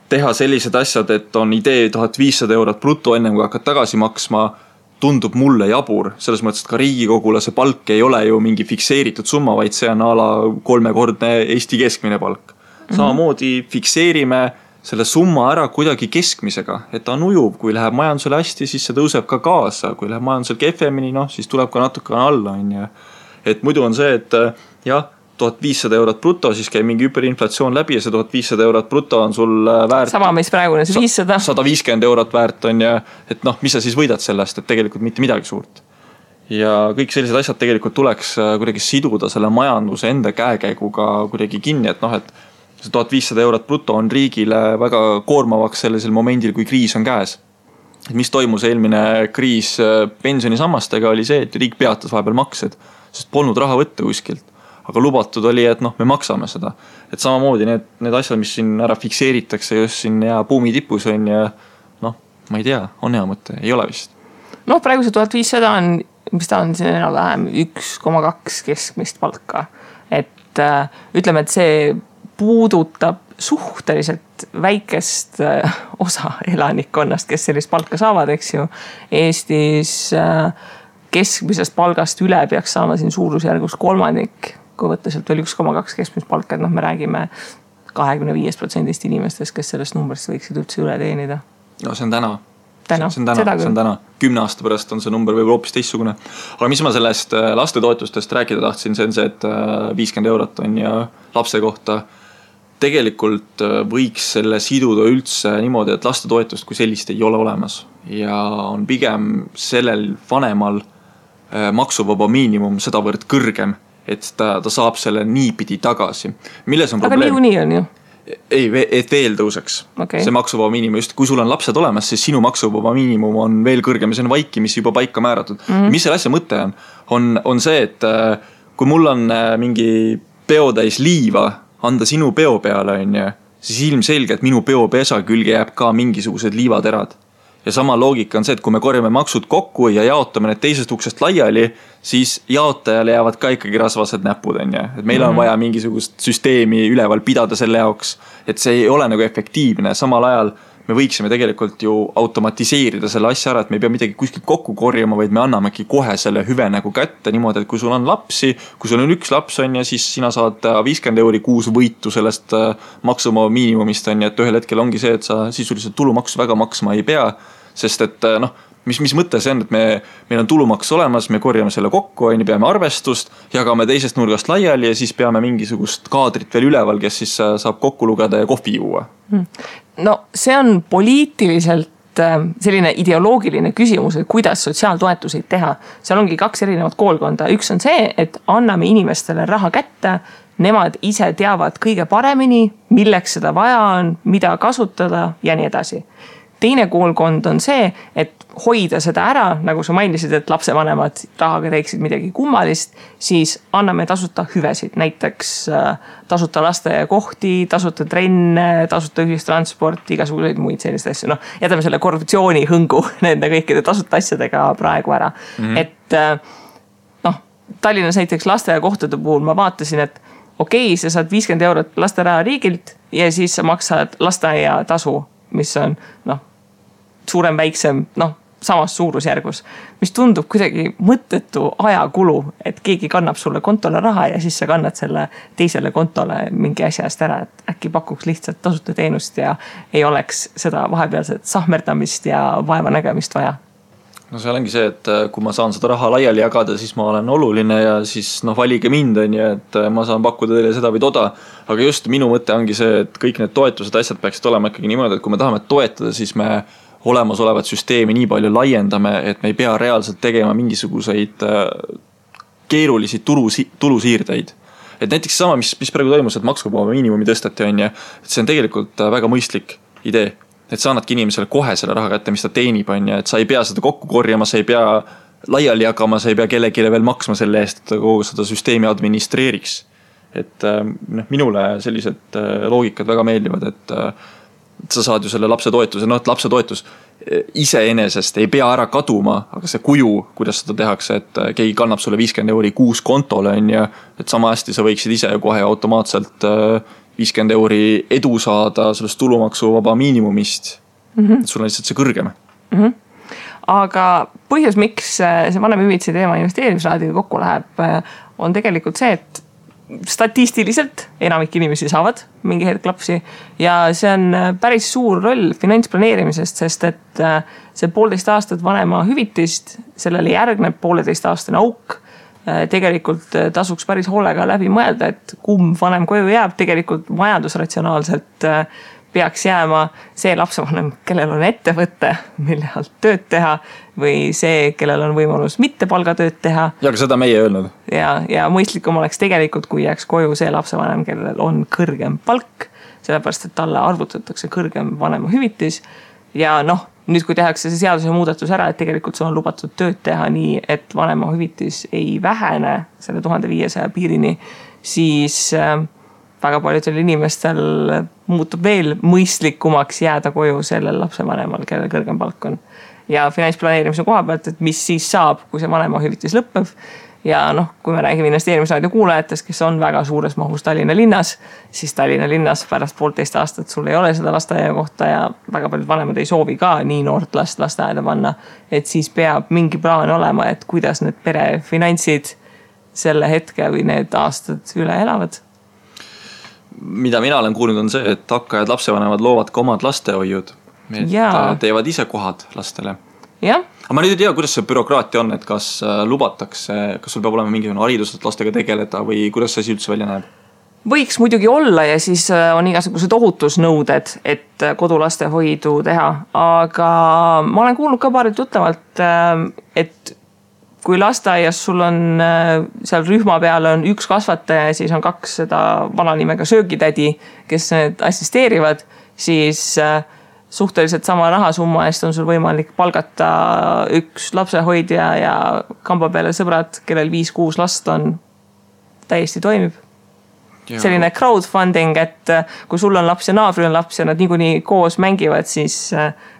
teha sellised asjad, et on idee 1500 eurot bruto enne kui hakkad tagasi maksma, tundub mulle jabur, selles mõttes, et ka riigikogule see palk ei ole ju mingi fikseeritud summa, vaid see on a la 3-kordne Eesti keskmine palk. Samamoodi fikseerime selle summa ära kuidagi keskmisega, et ta on ujuv, kui läheb majandusele hästi, siis see tõuseb ka kaasa, kui läheb majandusel kehvemini, siis tuleb ka natuke alla, on ju. Et muidu on see, et jah, 1500 eurot bruto, siis käib mingi hüperinflatsioon läbi ja see 1500 eurot bruto on sul väärt.
Sama meis praegune, see 500.
150 eurot väärt on ja, et mis sa siis võidad sellest, et tegelikult mitte midagi suurt. Ja kõik sellised asjad tegelikult tuleks kuidagi siduda selle majanduse enda käekäiguga kuidagi kinni, et et see 1500 eurot bruto on riigile väga koormavaks sellisel momendil, kui kriis on käes. Et mis toimus eelmine kriis pensionisammastega oli see, et riik peatas vahepeal maksed, sest polnud raha võtta kuskilt. Aga lubatud oli, et me maksame seda. Et samamoodi need asjad, mis siin ära fikseeritakse just siin ja buumi tipus on ja ma ei tea, on hea mõte, ei ole vist.
Praegu see 1500 on, mis ta on siin enam-vähem 1,2 keskmist palka. Et ütleme, et see puudutab suhteliselt väikest osa elanikkonnast, kes sellist palka saavad, eks ju. Eestis keskmisest palgast üle peaks saama siin suurusjärgus kolmandik, kui võtta sealt veel 1,2 keskmist palka, et me räägime 25% inimestest, kes sellest numbrist võiksid üldse üle teenida.
No see on täna. See on täna. 10 aasta pärast on see number võib hoopis teistsugune. Aga mis ma sellest lastetoetustest rääkida tahtsin, see on see, et 50 eurot on ja lapse kohta. Tegelikult võiks selle siduda üldse niimoodi, et lastetoetust kui sellist ei ole olemas. Ja on pigem sellel vanemal maksuvaba miinimum sedavõrd kõrgem, et ta saab selle niipidi tagasi. Milles on probleem?
Aga niikuinii on ju.
Ei, et veel tõuseks. Okay. See maksuvaba miinimum, just kui sul on lapsed olemas, siis sinu maksuvaba miinimum on veel kõrgem ja see on vaikimisi juba paika määratud. Mis selle asja mõte on see, et kui mul on mingi peotäis liiva anda sinu peo peale, siis ilmselge, et minu peopesa külge jääb ka mingisugused liivaterad. Ja sama loogika on see, et kui me korjame maksud kokku ja jaotame need teisest uksest laiali, siis jaotajale jäävad ka ikkagi rasvased näpud. Et meil on vaja mingisugust süsteemi üleval pidada selle jaoks, et see ei ole nagu efektiivne. Samal ajal me võiksime tegelikult ju automatiseerida selle asja ära, et me ei pea midagi kuskilt kokku korjama, vaid me annamegi kohe selle hüve nagu kätte niimoodi, et kui sul on lapsi, kui sul on üks laps on ja siis sina saad 50 euri kuus võitu sellest maksuvaba miinimumist on ja et ühel hetkel ongi see, et sa sisuliselt tulumaksu väga maksma ei pea, sest et mis mõte see on, et meil on tulumaks olemas, me korjame selle kokku, peame arvestust, jagame teisest nurgast laiali ja siis peame mingisugust kaadrit veel üleval, kes siis saab kokku lugeda ja kohvi juua.
No see on poliitiliselt selline ideoloogiline küsimus, et kuidas sotsiaaltoetuseid teha. Seal ongi 2 erinevat koolkonda. Üks on see, et anname inimestele raha kätte, nemad ise teavad kõige paremini, milleks seda vaja on, mida kasutada ja nii edasi. Teine koolkond on see, et hoida seda ära, nagu sa mainisid, et lapsevanemad rahaga teeksid midagi kummalist, siis anname tasuta hüvesid, näiteks tasuta lasteaiakohti, tasuta trenne, tasuta ühistransport, igasuguseid muid selliseid asju. Jätame selle korruptsiooni hõngu nende kõikide tasuta asjadega praegu ära. Et Tallinnas näiteks lasteaiakohtade puhul ma vaatasin, et okei, sa saad 50 eurot lasteraha riigilt ja siis sa maksad lasteaia tasu, mis on suurem, väiksem, samas suurusjärgus, mis tundub kuidagi mõttetu ajakulu, et keegi kannab sulle kontole raha ja siis sa kannad selle teisele kontole mingi asja eest ära, et äkki pakuks lihtsalt tasuta teenust ja ei oleks seda vahepealset sahmerdamist ja vaeva nägemist vaja.
No see ongi see, et kui ma saan seda raha laiali jagada, siis ma olen oluline ja siis valige mind on ja et ma saan pakkuda teile seda või toda. Aga just minu mõte ongi see, et kõik need toetused asjad peaksid olema ikkagi niimoodi, et kui me tahame toetada, siis me olemasolevat süsteemi nii palju laiendame, et me ei pea reaalselt tegema mingisuguseid keerulisi tulusiirdeid. Et näiteks sama, mis praegu toimus, et maksuvaba miinimumi tõstati on ja et see on tegelikult väga mõistlik idee. Et sa annadki inimesele kohe selle raha kätte, mis ta teenib on ja et sa ei pea seda kokku korjama, sa ei pea laiali jagama, sa ei pea kellelegi veel maksma selle eest, et kogu seda süsteemi administreeriks. et minule sellised loogikad väga meeldivad, et sa saad ju selle lapsetoetuse, et lapsetoetus iseenesest ei pea ära kaduma, aga see kuju, kuidas seda tehakse, et keegi kannab sulle 50 € kuus kontole, et sama hästi sa võiksid ise kohe automaatselt 50 € edu saada sellest tulumaksuvaba miinimumist. Et sul on lihtsalt see kõrgem.
Aga põhjus, miks see vanemahüvitise teema investeerimisraadiga kokku läheb, on tegelikult see, et statistiliselt enamik inimesi saavad mingi hetk lapsi ja see on päris suur roll finantsplaneerimisest, sest et see 1,5 aastat vanema hüvitist, sellele järgneb 1,5-aastane auk. Tegelikult tasuks päris hoolega läbi mõelda, et kumb vanem koju jääb, tegelikult majandusratsionaalselt peaks jääma see lapsevanem, kellel on ettevõte, mille alt tööd teha või see, kellel on võimalus mitte palgatööd teha.
Ja aga seda meie öelnud.
Ja mõistlikum oleks tegelikult, kui jääks koju see lapsevanem, kellel on kõrgem palk, sellepärast, et talle arvutatakse kõrgem vanema hüvitis. Ja nüüd kui tehakse see seaduse muudatus ära, et tegelikult sul on lubatud tööd teha nii, et vanema hüvitis ei vähene selle 1500 piirini, siis väga paljudel inimestel muutub veel mõistlikumaks jääda koju sellel lapsevanemal, kellel kõrgem palk on. Ja finantsplaneerimise koha pealt, et mis siis saab, kui see vanema hüvitis lõpeb. Ja kui me räägime investeerimisraadio kuulajatest, kes on väga suures mahus Tallinna linnas, siis Tallinna linnas pärast 1,5 aastat sul ei ole seda lasteaia kohta ja väga paljud vanemad ei soovi ka nii noort last lasteaeda panna. Et siis peab mingi plaan olema, et kuidas need pere finantsid selle hetke või need aastad üle elavad.
Mida mina olen kuulnud on see, et hakkajad lapsevanemad loovad ka omad lastehoiud. Et teevad ise kohad lastele.
Jah.
Aga ma nüüd ei tea, kuidas see bürokraatia on, et kas lubatakse, kas sul peab olema mingisugune haridus, et lastega tegeleda või kuidas see üldse välja näeb?
Võiks muidugi olla ja siis on igasugused ohutusnõuded, et kodulastehoidu teha. Aga ma olen kuulnud ka paarilt tuttavalt, et kui lasteaias sul on seal rühma peal on üks kasvataja ja siis on 2 seda vananimega söögitädi, kes need assisteerivad, siis suhteliselt sama rahasumma eest on sul võimalik palgata üks lapsehoidja ja kamba peale sõbrad, kellel 5-6 last on, täiesti toimib. Ja. Selline crowdfunding, et kui sul on laps ja naabri on laps ja nad niikuinii koos mängivad, siis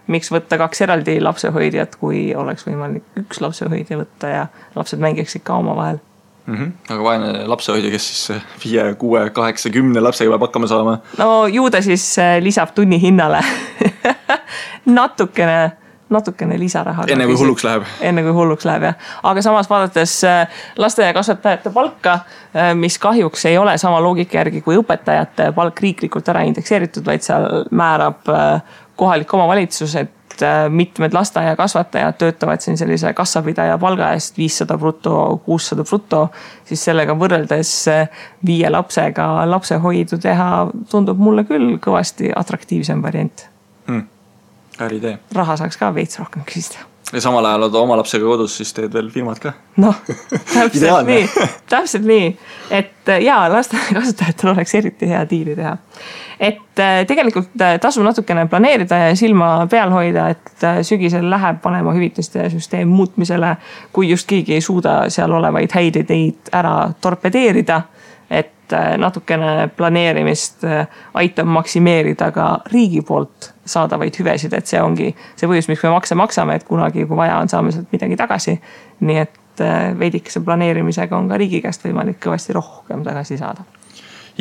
miks võtta 2 eraldi lapsehoidjat, kui oleks võimalik üks lapsehoidja võtta ja lapsed mängiksid ka oma vahel.
Aga vaene lapsehoidja, kes siis 5, 6, 8, 10 lapsega peab hakkama saama?
No ju ta siis lisab tunni hinnale natukene lisaraha.
Enne kui hulluks läheb.
Enne kui hulluks läheb, jah. Aga samas vaadates lasteaia kasvatajate palka, mis kahjuks ei ole sama loogika järgi kui õpetajate palk riiklikult ära indekseeritud, vaid seal määrab kohalik omavalitsus, et mitmed lasteaia kasvatajad töötavad siin sellise kassapidaja palga eest 500 bruto, 600 bruto, siis sellega võrreldes 5 lapsega lapsehoidu teha tundub mulle küll kõvasti atraktiivsem variant.
Idee.
Raha saaks ka veits rohkem küsida.
Ja samal ajal oled oma lapsega kodus, siis teed veel firmad ka.
Täpselt nii. Et lasteaia kasutajatel oleks eriti hea diili teha. Et tegelikult tasub natukene planeerida ja silma peal hoida, et sügisel läheb vanema hüvitiste süsteem muutmisele, kui just keegi ei suuda seal olevaid häid ideid ära torpedeerida, et natukene planeerimist aitab maksimeerida ka riigi poolt saadavaid hüvesid, et see ongi see põhjus, miks me makse maksame, et kunagi, kui vaja on, saame sealt midagi tagasi. Nii et veidikese planeerimisega on ka riigi käest võimalik kõvasti rohkem tagasi saada.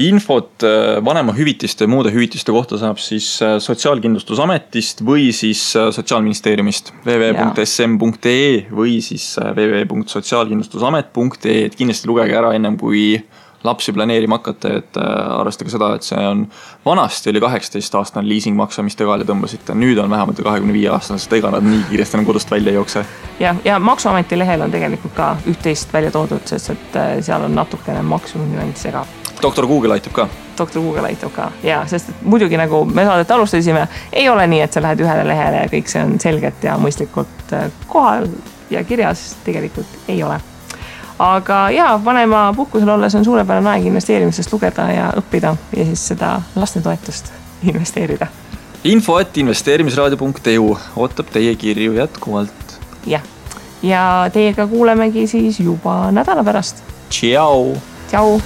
Infot vanema hüvitiste ja muude hüvitiste kohta saab siis Sotsiaalkindlustusametist või siis Sotsiaalministeeriumist www.sm.ee või siis www.sotsiaalkindlustusamet.ee, et kindlasti lugege ära ennem kui lapsi planeerima hakata, et arvestage seda, et see on vanasti oli 18-aastane liisingmakse, mis te kaale tõmbasite. Nüüd on vähemalt 25-aastane, sest ega nad nii kiiresti enam kodust välja ei jookse.
Ja Maksuameti lehel on tegelikult ka üht-teist välja toodud, sest et seal on natukene maksunüanss ka.
Doktor Google aitab ka.
Doktor Google aitab ka, ja, sest et muidugi nagu me saadet alustasime, ei ole nii, et sa lähed ühele lehele ja kõik see on selgelt ja mõistlikult kohal ja kirjas tegelikult ei ole. Aga vanema puhkusel olles on suurepärane aeg investeerimisest lugeda ja õppida ja siis seda lastetoetust investeerida.
info@investeerimisraadio.eu ootab teie kirju jätkuvalt.
Ja teiega kuulemegi siis juba nädala pärast.
Tšau!
Tšau!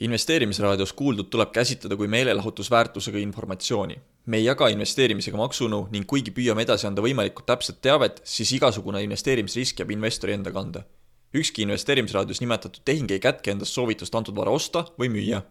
Investeerimisraadios kuuldud tuleb käsitleda kui meelelahutusväärtusega informatsiooni. Me ei jaga investeerimisega maksunu ning kuigi püüame edasi anda võimalikult täpset teavet, siis igasugune investeerimisrisk jääb investori enda kanda. Ükski investeerimisraadios nimetatud tehing ei kätke endast soovitust antud vara osta või müüa.